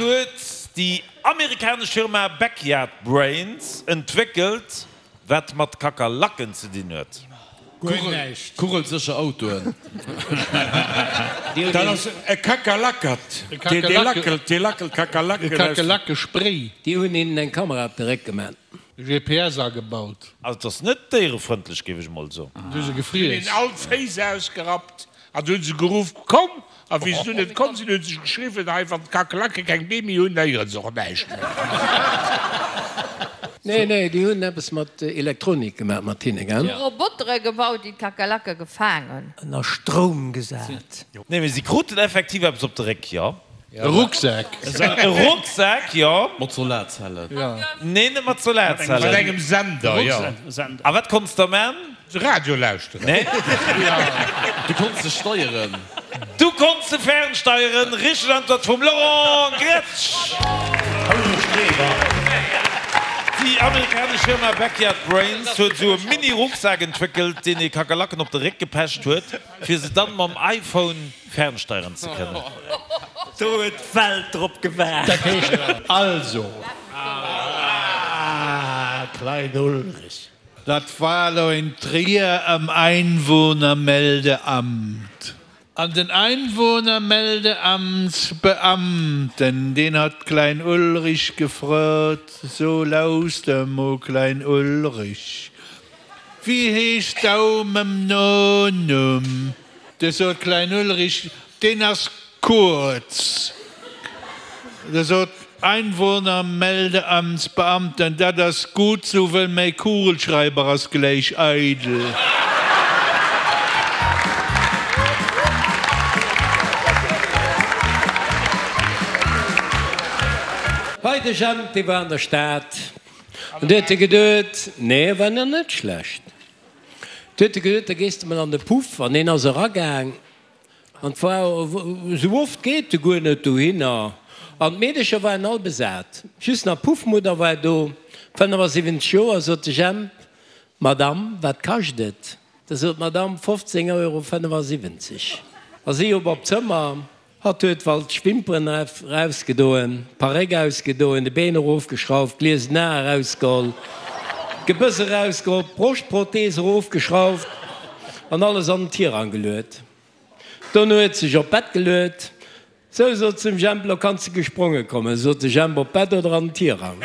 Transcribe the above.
huet déi amerikanesch Firma Backyard Brains entwéckelt, wat mat Kakerlaken ze dinn huet? Guer näischt. Kugelsécher Autoen. Dat ass e Kakerlackert. Dee lackelt, dee lackelt Kakerlaken aus. E Kakerlakespray. Déi hunn hinnen eng Kamera op de Réck gemaat. GPS agebaut. Also et ass net déierefrëndlech, géif ech mol soen. Du se gefriess. Hunn hinnen all d'Féiss ausgerappt an du hunn se geruff, Komm! A wéi se dunn net komm sinn, hu se geschriwwen, Hei, wann d'Kakerlake keng Bee méi hunn, héiere se och näischt méi. Nee, nee, déi hunn eppes mat Elektronik gemaach mat hinne, gell? Robotere gebaut, déi d'Kakerlake gefaang hunn. Ënner Stroum gesat. Nee, mee si kruten effektiv eppes op de Réck, jo. E Rucksak. E Rucksak, jo. Mat Solarzellen. Nee, net mat Solarzellen. Mat engem Sender, jo. A wat konns de man? Radio lauschteren. Nee. Du konns se steieren. Du konns se fernsteieren. Richteg Antwort vum Laurent Gretsch. Déi amerikanesch Firma Backyard Brains huet esou e Mini-Rucksak entwéckelt, deen ee Kakerlaken op de Réck gepecht huet, fir se dann mam iPhone fernsteieren ze kënnen. Do huet d'Welt drop gewaart. Dat heescht also. Ah, Klein Ulrich. Dat war elo in Trier am Einwohnermeldeamt. An den Einwohnermeldeamtsbeamten, deen hat Klein Ulrich gefrot, So, lauster mol, Klein Ulrich, wéi heescht dau mam Nonumm? Du sot Klein Ulrich, Deen ass Kurz. Da sot Einwohnermeldeamtsbeamten, Dat ass gutt sou, wëll mäi Kugelschreiber ass gläich eidel. Hei de Jemp, dee war an der Stad an du huet e geduet, nee, e war nach net schlecht, du huet e geduet, da gees de mol an de Puff an deen ass eragaang An 't war esou oft geet e guer net dohinner. An d'Meedecher waren all besat. Just nach d'Puffmudder war do, 75 Joer. Sot de Jemp, Madame, wat kascht et? Da sot d'Madame, 15 Euro 75. A si op op d'Zëmmer. Hatt huet waltsch d'Wimperen erausgedoen, d'Paréck ausgedoen, de Been erofgeschrauft, d'gliesen Ae erausgeholl, d'Gebëss erausgeholl, d'Broschtprothees erofgeschrauft an alles an den Tirang geluet. Dono huet sech op d'Bett geluet. Sou, sot s'em Jemp, lo kanns de gespronge kommen. Sot de Jemp, op d'Bett oder an den Tirang?